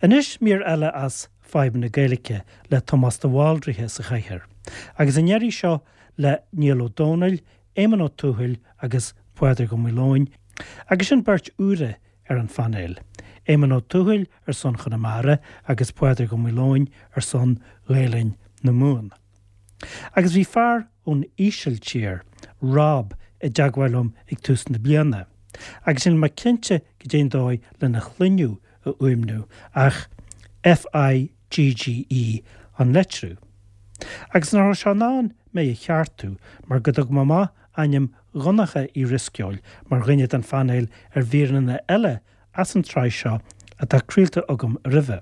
Anois mír eile as Fadhb na Gaeilge le Tomás de Bhaldraithe sa chathaoir, agus an iarraidh seo le Niall Ó Dónaill, Éamonn Ó Tuathail agus Pádraig Ó Maoileoin, agus sin beirt úra ar an phainéal, Éamonn Ó Tuathail ar son Chonamara agus Pádraig Ó Maoileoin ar son Ghaelainn na Mumhan. Agus bhí fear ón Ísiltír, Rob, i dteagmháil liom ag tús na bliana, agus níl mé cinnte goidé an dóigh lena shloinneadh a fhuaimniú, ach FIGGE an litriú. Agus nach raibh sé in ann mé a cheartú mar go dtug mé amach ainm Dhonncha Uí Dhrisceoil mar dhuine den phainéal ar mhíreanna eile as an tsraith seo atá craolta agam roimhe.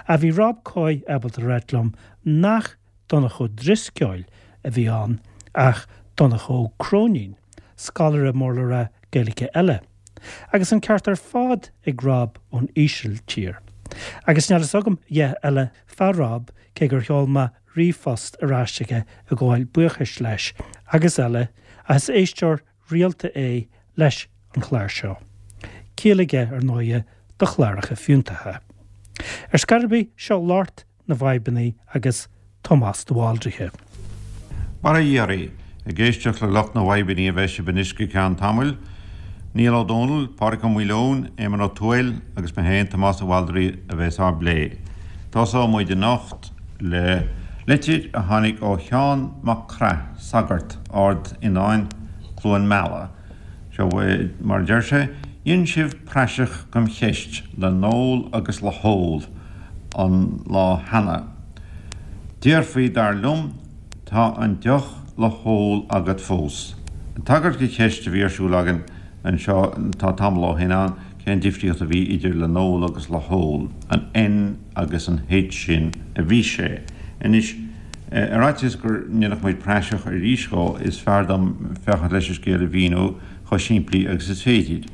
Ach bhí Rob Coy ábalta a ráit liom nach Donncha Ó Drisceoil a bhí ann ach Donncha Ó Cróinín, scoláire mór le rá Gaeilge eile. Agus an ceart ar fad ag Rob ón Ísiltír. Agus níl fhios agam a dhath eile fá Rob cé gur sheol mé ríomhphost ar ais chuige ag gabháil buíochais leis agus eile ach is éisteoir rialta é leis an chlár seo. Ciall aige, ar ndóighe, do chláracha fiúntacha. Ar scor ar bith, seo lucht na bhfadhbanna agus Tomás de Bhaldraithe. Mar a iarraidh, ag éisteacht le lucht na bhfadhbanna a bheidh sibh anois go ceann tamaill, Niall Ó Dónaill, Pádraig Ó Maoileoin, Éamonn Ó Tuathail agus mé féin, Tomás de Bhaldraithe, a bheas á bplé. Tosóidh muid anocht le litir a tháinig ó Sheán Mac Craith, sagart, Ard Fhionáin, Cluain Meala. Seo mar a deir sé, Dhein sibh praiseach gom cheist le n-ól agus le hól an lá cheana. Déarfaí, dar liom, tá an deoch le hól agat fós. Ag tagairt do cheist a bhí ar siúl againn anseo tá tamall ó shin ann, cén difríocht a bhí idir le n-ól agus le hól, an N agus an H sin a bhí sé. Anois, ar fhaitíos go ndéanfadh muid praiseach arís dhó, is fearr dom féachaint leis an scéal a mhíniú chomh simplí agus is féidir.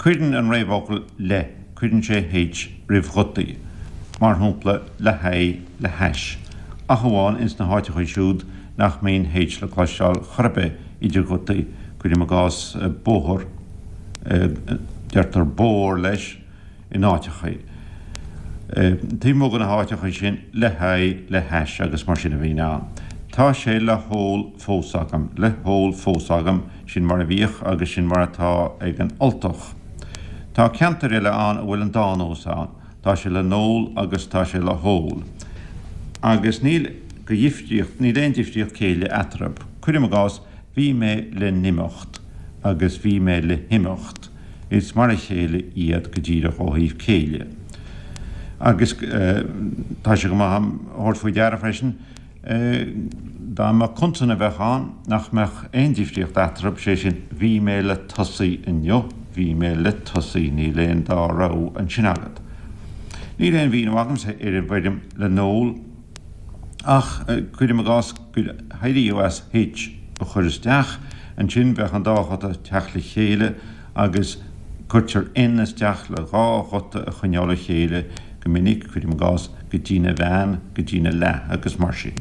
Cuireann an réamhfhocal le, cuireann sé H roimh ghutaí, mar shampla, le haghaidh, le hais, ach amháin ins na háiteachaí siúd nach mbíonn H le cloisteáil chor ar bith idir ghutaí, cuirim i gcás bóthar, deirtear bór leis, in áiteachaí. Taobh amuigh de na háiteachaí sin, le haghaidh, le hais agus mar sin a bhíonn ann. Tá sé le hól fós agam, le hól fós agam, sin mar a bhíodh agus sin mar atá ag an Ultach. Tá ceantair eile ann a bhfuil an dá nós ann, tá sé le n-ól agus tá sé le hól. Agus níl go dhifríocht, níl aon difríocht céille eatarthu. Cuirim i gcás, bhí mé le n-imeacht agus bhí mé le himeacht. Is mar a chéile iad go díreach ó thaobh céille. Agus tá sé go maith a thabhairt faoi deara freisin, dá mba consan a bheadh ann, nach mbeadh aon difríocht eatarthu, sé sin, bhí mé le tosaí inniu, bhí mé le tosaí, níl aon dá rogha ansin agat. Níl aon mhíniú agamsa ar an bhfoirm le n-ól, ach cuirim i gcás gur éiríodh as H a chur isteach, ansin bheadh an dá ghuta ag teacht le chéile agus cuirtear N isteach le dhá ghuta a choinneáil le chéile go minic, cuirim i gcás, go dtína bhean, go dtína leath agus mar sin.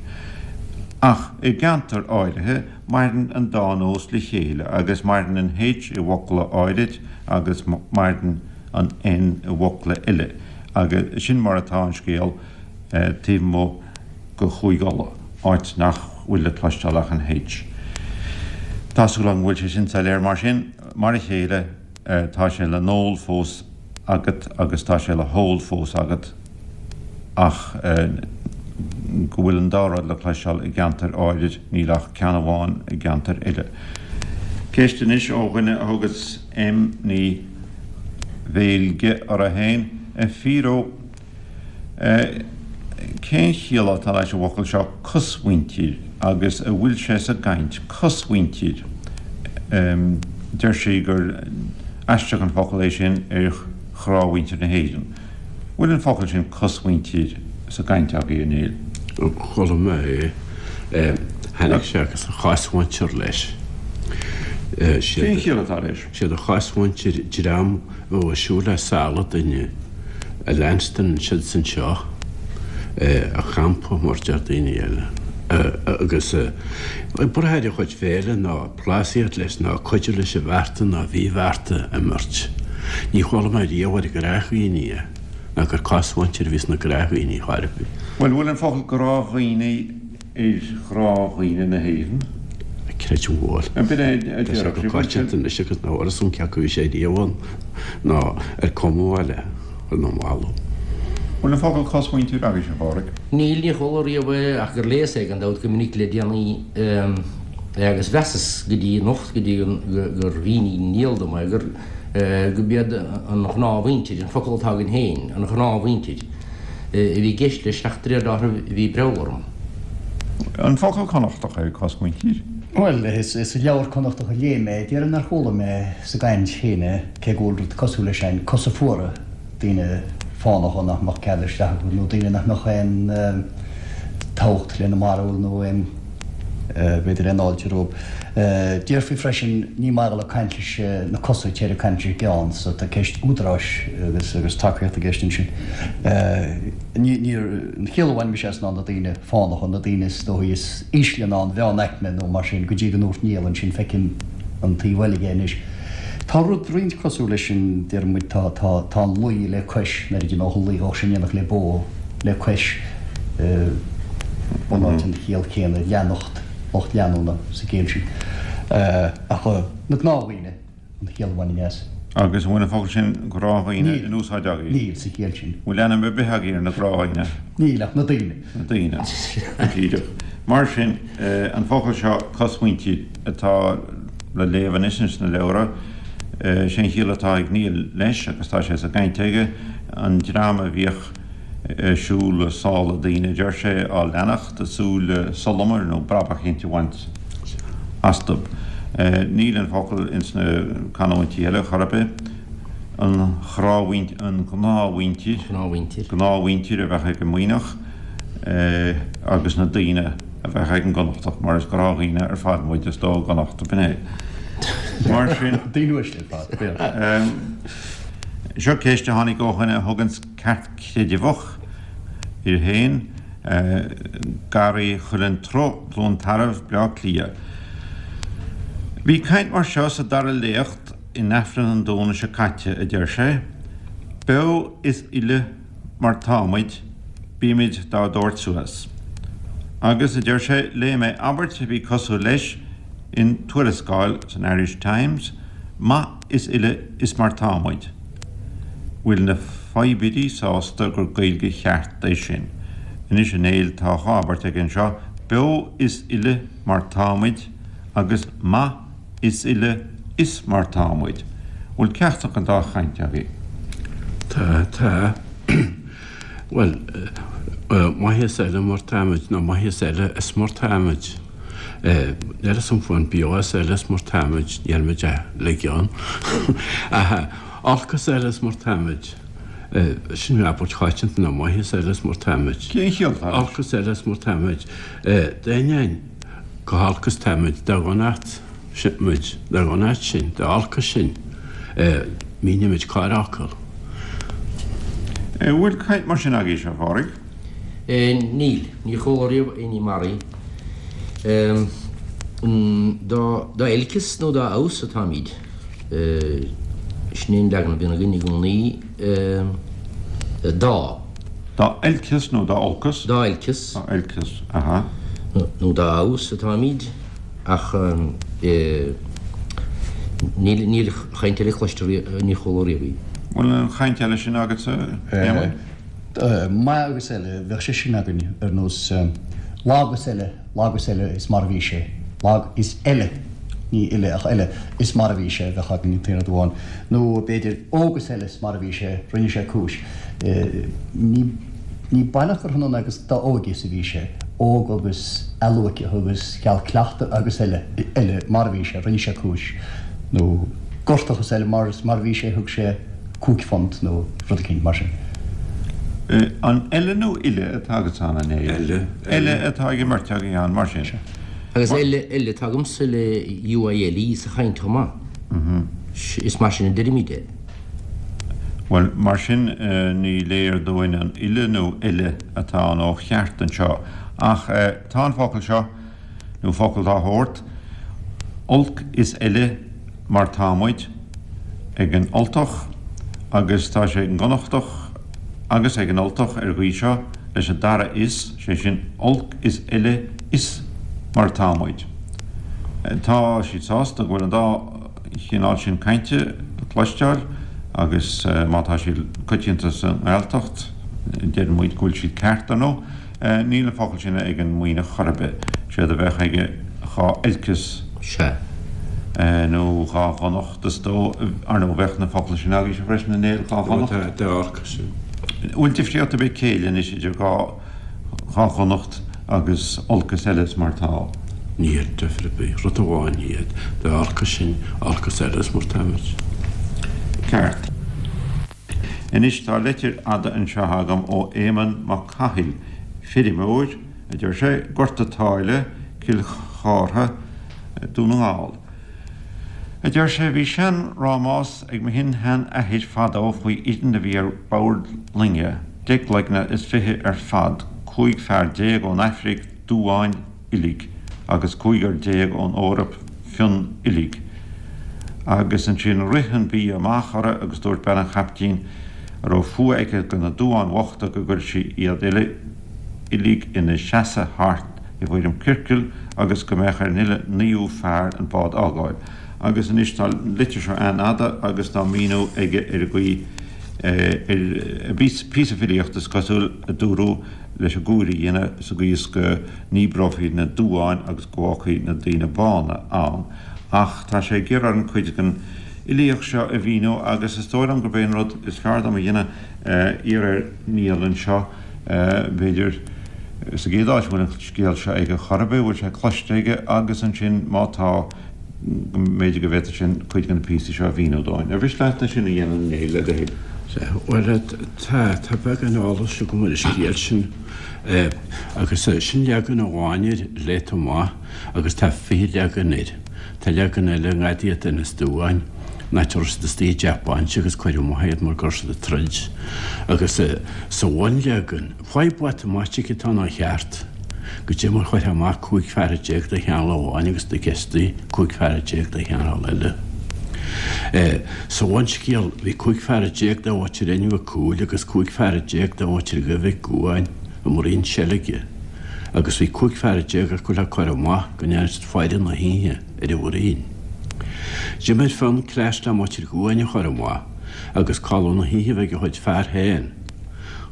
Ach i gceantair áirithe, maireann an dá nós le chéile agus maireann an H i bhfocla áirid agus maireann an N i bhfocla eile agus sin mar atá an scéal. taobh amuigh de Chúige Uladh, áit nach bhfuil le cloisteáil ach an H. Tá súil agam go bhfuil sé sin soiléir. Mar sin, mar a chéile, tá sé le n-ól fós agat agus tá sé le hól fós agat ach go bhfuil an dá rud le cloisteáil i gceantair áirid, níl ach ceann amháin i gceantair eile. Ceist anois ó dhuine a thugas M. Ní Bheilge uirthi féin, A Phiro, Cén chiall atá leis an bhfocal seo cosmhuintir agus a bhfuil sé sa gcaint? Cosmhuintir. Deir sí gur aisteach an focal é sin ar ghnáthmhuintir na hÉireann. Bhfuil an focal sin cosmhuintir sa gcaint agaibh, a Néill? Chuala mé é. Tháinig sé agus a chosmhuintir leis. Cén chiall atá leis? Siad a chosmhuintir dream a bheadh ag siúl le sála duine. A leanstan siadsan seo a champa, mar deir daoine eile, agus ag brath ar a chuid féile ná plásaíocht leis ná cuidiú leis an bhearta ná mhíbhearta a imirt. Ní chuala mé riamh ar ghnáthdhaoine é. ná gur cosmhuintir a bhí sna gnáthdhaoine chor ar bith. Bhuel, bhfuil an focal gnáthdhaoine ar ghnáthdhaoine na hÉireann? Creidim go bhfuil. B'in é a Tá sé déarfadh go sibh. coitianta anois agus nach bhfuil fhios agam cé acu a bhí sé riamh ann nó ar cumadh é le chur na mbalbh. Bhfuil an focal cosmhuintir agaibhse, a Phádraig? Níl, níor chuala riamh é ach gur léas é gan dabht go minic le déanaí agus mheasas go dtí anocht, go dtí gur mhínigh Niall dom é, gur gurb iad an ghnáthmhuintir, an focal atá againn féin, an ghnáthmhuintir, a bhí i gceist leis ach de réir dealraimh bhí breall orm. An focal Connachtach é cosmhuintir? Bhuel, is i leabhar Connachtach a léigh mé, déarfainn nár chuala mé sa gcaint féin é, cé go bhfuil rud cosúil leis ann, cosa fuara, daoine fánacha nach mbeadh cead isteach acu nó daoine nach mbeadh aon tábhacht lena mbarúil nó aon, b'fhéidir aon fháilte rompu. Déarfaí freisin, ní maith a dhul ag caint leis na cosa, téir ag caint leis an gceann, so tá ceist údaráis agus agus tacaíocht i gceist ansin. Ní, níor, an chiall a bhain mise as ná na daoine fánacha, na daoine is dóichí is ísle ná an mheánaicme nó mar sin, go dtí go ndúirt Niall ansin, feicim an taobh eile dhe anois. Tá rud roinnt cosúil leis sin, deir muid, tá, tá, tá an luí le cois, nuair a d'imeodh an luí bheadh sé in éineacht le bó, le cois, bunáite an chiall chéanna, leanacht, lucht leanúna sa gcéill sin. Ach na gnáthdhaoine, an chiall a bhainfinn as. Agus an bhfuil an focal sin gnáthdhaoine in úsáid agaibh? Níl, sa chiall sin. Bhfuil ainm ar bith agaibh ar na gnáthdhaoine? Níl, ach na daoine. Na daoine. Go díreach. Mar sin, an focal seo, cosmhuintir, atá le léamh anois ins na leabhra, sé an chiall atá ag Niall leis, agus tá sé sa gcaint aige, an dream a bhíodh ag siúl sála daoine, a deir sé, á leanacht, ag súil le solamar nó brabach eicínt a bhaint astu. Níl an focal ins na canúintí eile chor ar bith. An ghnáthmhuintir, an ghnáthmhuintir, gnáthmhuintir a bheadh ag an Muimhneach agus na daoine. a bheadh ag an gConnachtach, mar is gnáthdhaoine ar fad muid, is dóigh i gConnacht, b'in é. Mar sin. Daoine uaisle ar fad, b'fhéidir. Seo ceist a tháinig ó dhuine a thuganns ceartchreideamhach air féin, Garraí Chuileann Truth, Cluain Tarbh, Bleá Cliath. Bhí caint mar seo sa dara léacht in Aifreann an Domhnaigh seo caite, a deir sé, Beo is uile mar táimid, bímid dá dtabhairt suas. Agus, a deir sé, léigh mé abairt a bhí cosúil leis in tuarascáil san Irish Times, maith is uile is mar tá muid. Bhfuil na fadhbirí sásta gur Gaeilge cheart é sin? Anois a Néill, tá dhá abairt aige anseo, beo is uile mar táimid agus maith is uile is mar tá muid. Bhfuil ceachtar den dá chaint agaibh? Tá, tá. Bhuel, maith is eile mar táimid, nó maith is eile is mar táimid. Níl 'fhios a'm faoin beo is eile is mar táimid, níl muid ach le gceann. Ach olc is eile is mar táimid. Sin abairt choitianta, nó maith is eile is mar táimid. Cén chiall atá leis? Olc is eile is mar táimid. D'ainneoin go holc is táimid, dá dhonacht muid, dá dhonacht sinn, dá olcas sinn, mínímid corrfhocal. An bhfuil caint mar sin agaibhse, a Phádraig? Níl. Níor chuala riamh aon ní mar í. Dá olcas nó dá fheabhas atáimid, sin é an leagan a bhíonn againn i gcónaí, dá. Dá olcas nó dá olcas? Dá olcas. Dá olcas, aha. Nó dá fheabhas atáimid, ach níl, níl chaint eile cloiste riamh, níor chuala riamh í. Bhfuil an chaint eile sin agatsa, Éamonn? Maith agus eile, bheadh sé sin againn, ar nós lag is eile, lag is eile is mar a bhí sé, lag is eile, ní uile ach eile, is mar a bhí sé, bheadh againn an t-aon rud amháin. Nó b'fhéidir óg is eile is mar a bhí sé, rinne sé cúis. Ní ní baileach gur hionann agus dá óige is a bhí sé, óg agus athluaiceach agus cheal cleachtaidh agus eile, eile mar a bhí sé, rinne sé cúis. Nó gortach is eile mar is mar a bhí sé, thug sé £5 nó rud eicínt mar sin. An eile nó uile atá agatsa ann, a Néill? Eile. Eile atá ag an mbeirt agaibh ann, mar sin. Agus eile, eile atá agamsa le UILE sa chaint chomh maith. Is mar sin a deirimid é. Bhuel, mar sin, ní léir dúinn an uile nó eile atá ann ó cheart anseo. Ach tá an focal seo, nó focal dá shórt, olc is eile mar tá muid, ag an Ultach agus tá sé ag an gConnachtach. Agus ag an Ultach ar an gcaoi seo, leis an dara 'is', sé sin, olc is eile is mar atá muid. Tá siad sásta go bhfuil an dá chineál sin cainte le cloisteáil agus má tá siad coitianta sa nGaeltacht, deireann muid go bhfuil siad ceart, ar ndóigh. Níl an focal sin ag an Muimhneach chor ar bith. Séard a bheadh aige dhá oilceas. Sea. Nó dhá dhonacht, is dóigh. Ar ndóigh, bheadh na focla sin agaibhse freisin, a Néill, dhá dhonacht. Tá, dá olcas sin. Bhfuil difríocht ar bith céille anois idir dhá, dhá dhonacht agus olc is eile is mar tá? Níl difear ar bith. Rud amháin iad. Dá olcas sinn, olc is eile is mar táimid. Ceart. Anois tá leitir fhada anseo agam ó Éamonn Mac Cathail, feirmeoir, a deir sé, Gort a' tSáile, Cill Chártha, Dún na nGall. A deir sé, bhí sean-rámás ag mo shin-shean-athair fadó faoi fhoireann a bhí ar bord loinge, 20 gcloigne ar fad, 15 fear ón Aifric, duáin, uilig, agus 15 ón Eoraip, fionn uilig. Agus ansin rith an bia amach orthu agus dúirt bean an chaiptín, a raibh fuath aici do na duáin bhochta, go gcuirfeadh sí iad uile uilig ina seasamh thart i bhfoirm ciorcail agus go mbeadh ar an uile naoú fear an bád a fhágáil. Agus anois tá an litir seo an-fhada agus tá míniú aige ar an gcaoi ar píosa filíochta is cosúil a dúradh leis an gcúir a dhéanamh sa gcaoi is go ndíbreofaí na duáin agus go bhfágfaí na daoine bána ann. Ach tá sé ag iarraidh orainn cuid den fhilíocht seo a mhíniú agus is dóigh liom gurb é an rud is fearr dom a dhéanamh iarraidh ar Niall anseo, b'fhéidir, sa gcéad áit, an bhfuil an scéal seo aige chor ar bith, an bhfuil sé cloiste aige agus ansin má tá, go mb'fhéidir go bhféadfadh sé cuid de na píosaí seo a mhíniú dúinn. Ar mhiste leat é sin a dhéanamh, a Néill, le do thoil? Sea, bhuel, tá, tá beagán eolais agam ar an scéal sin agus sin leagan amháin air léite amach agus tá 20 leagan air. Tá leagan eile i ngadaí at Inis Duáin, an áit a raibh siad istigh i dteach bainse agus cuireadh amach iad mar go raibh siad ag troid. Agus sa bhunleagan, Fadhb mhatamaitic atá ann ó cheart. Goidé mar chuirfeá amach 15 fear de chineál amháin agus de giostaí 15 fear de chineál eile. Sa bhunscéal bhí 15 fear de mhuintir Fhinn Mhic Cumhaill agus 15 fear de mhuintir Dhuibh Mhic Gabhann i mbruíon seilge agus bhí 15 fear acu le cur amach go ndearna siad faire na hoíche ar an bhruíon. D'imir Fionn cleas le muintir Dhuáin a chur amach agus codladh na hoíche a bheith ag a chuid fear féin.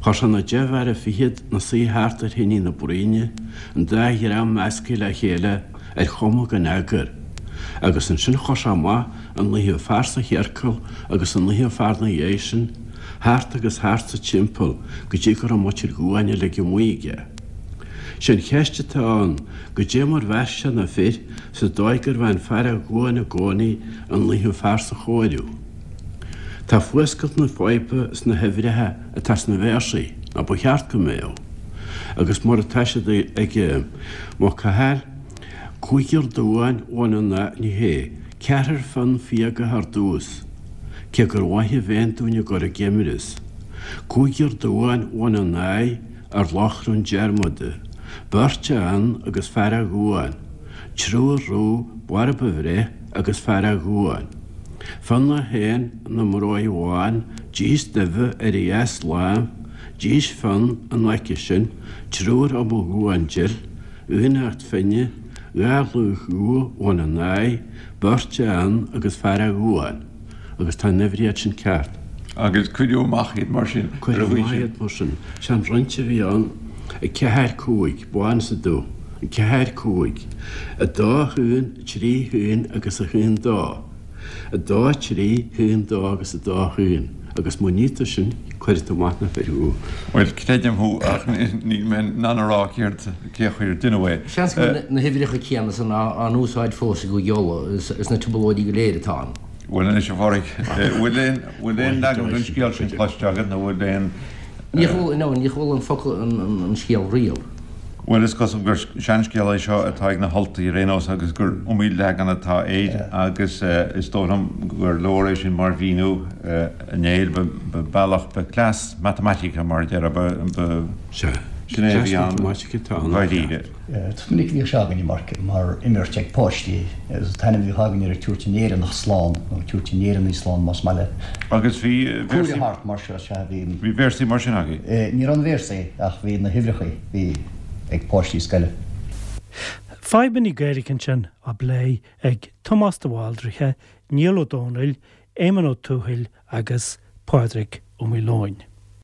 Chuir sé na deich bhfear fichead 'na suí thart ar thine na bruíne, an dá dhream measctha le chéile ar chuma gan eagar, agus ansin chuir sé amach an naoú fear sa chiorcal agus an naoú fear 'na dhiaidh sin, thart agus thart sa timpeall go dtí go raibh muintir Dhuáin uilig amuigh aige. Sé an cheist atá ann, goidé mar mheasc sé na fir sa dóigh gurbh é an fear ó Dhuáin i gcónaí an naoú fear sa chomhaireamh? Tá fuascailt na faidhbe sna huimhreacha atá sna véarsaí, nó ba cheart go mbeadh, agus mar atá siad ag Mac Cathail, Cúigear duáin bhain an nath, ní hé, ceathrar fionn fiagach ar dtús, cé gur mhaith a bhéann dúinn a gcur i gceimreas. Cúigear duáin bhain a n-aghaidh ar lochrán Diarmada, beirt a fhionn agus fear a Dhuáin, triúr rú borb a bhreith agus fear a Dhuáin. Fionn é féin ina mbróig bhán, dís duibhe ar a dheasláimh, dís Fionn in aice sin, triúr ó mo Dhuán dil, aoinneacht Finne, dhá laoch dhubha bhain a n-aghaidh, beirt a Fhionn agus fear a Dhuáin. Agus tá an uimhríocht sin ceart. Agus cuireadh amach iad mar sin. Cuireadh amach iad mar sin. Sé an roinnt a bhí ann, 4, 5, bán is dubh, 4, 5, 2, 1, 3, 1 agus 1, 2. 2, 3, 1, 2 agus 2, 1, agus má ní tú sin, cuirfidh tú amach na fir thú. Bhuel, creidim thú, ach níl mé in ann a rá céard, cé chaoi ar deineadh é. Seans go bhfuil na huimhreacha céanna san á n-úsáid fós i gCúige Uladh, sna trioblóidí go léir atá ann. Bhuel anois, a Phádraig, bhfuil aon, bhfuil aon leagan den scéal sin cloiste agat nó bhfuil aon. Níor chuala, no, níor chuala an focal, an scéal riamh. Bhuel, is cosúil gur seanscéal é seo atá ag na hUltaigh ar aon nós agus gur iomaí leagan atá air agus is dóigh liom gur leor é sin mar mhíniú, a Néill, ba bealach, ba cleas matamaitice mar a déarfá, ba. Sea. Sin é a bhí ann dháiríre. Is minic a bhíodh sé againne mar mar imirt ag páistí agus an t-ainm a bhíodh againn air tabhairt an Éireannach slán nó tabhairt an Éireannaigh slán más maith leat. Agus bhí véarsaí thart mar seo, sea bhí. Bhí véarsaí mar sin agaibh? Ní raibh na véarsaí ach bhí na huimhreacha, bhí ag páistí scoile. Fadhbanna Gaeilge ansin á bplé ag Tomás de Bhaldraithe, Niall Ó Dónaill, Éamonn Ó Tuathail agus Pádraig Ó Maoileoin.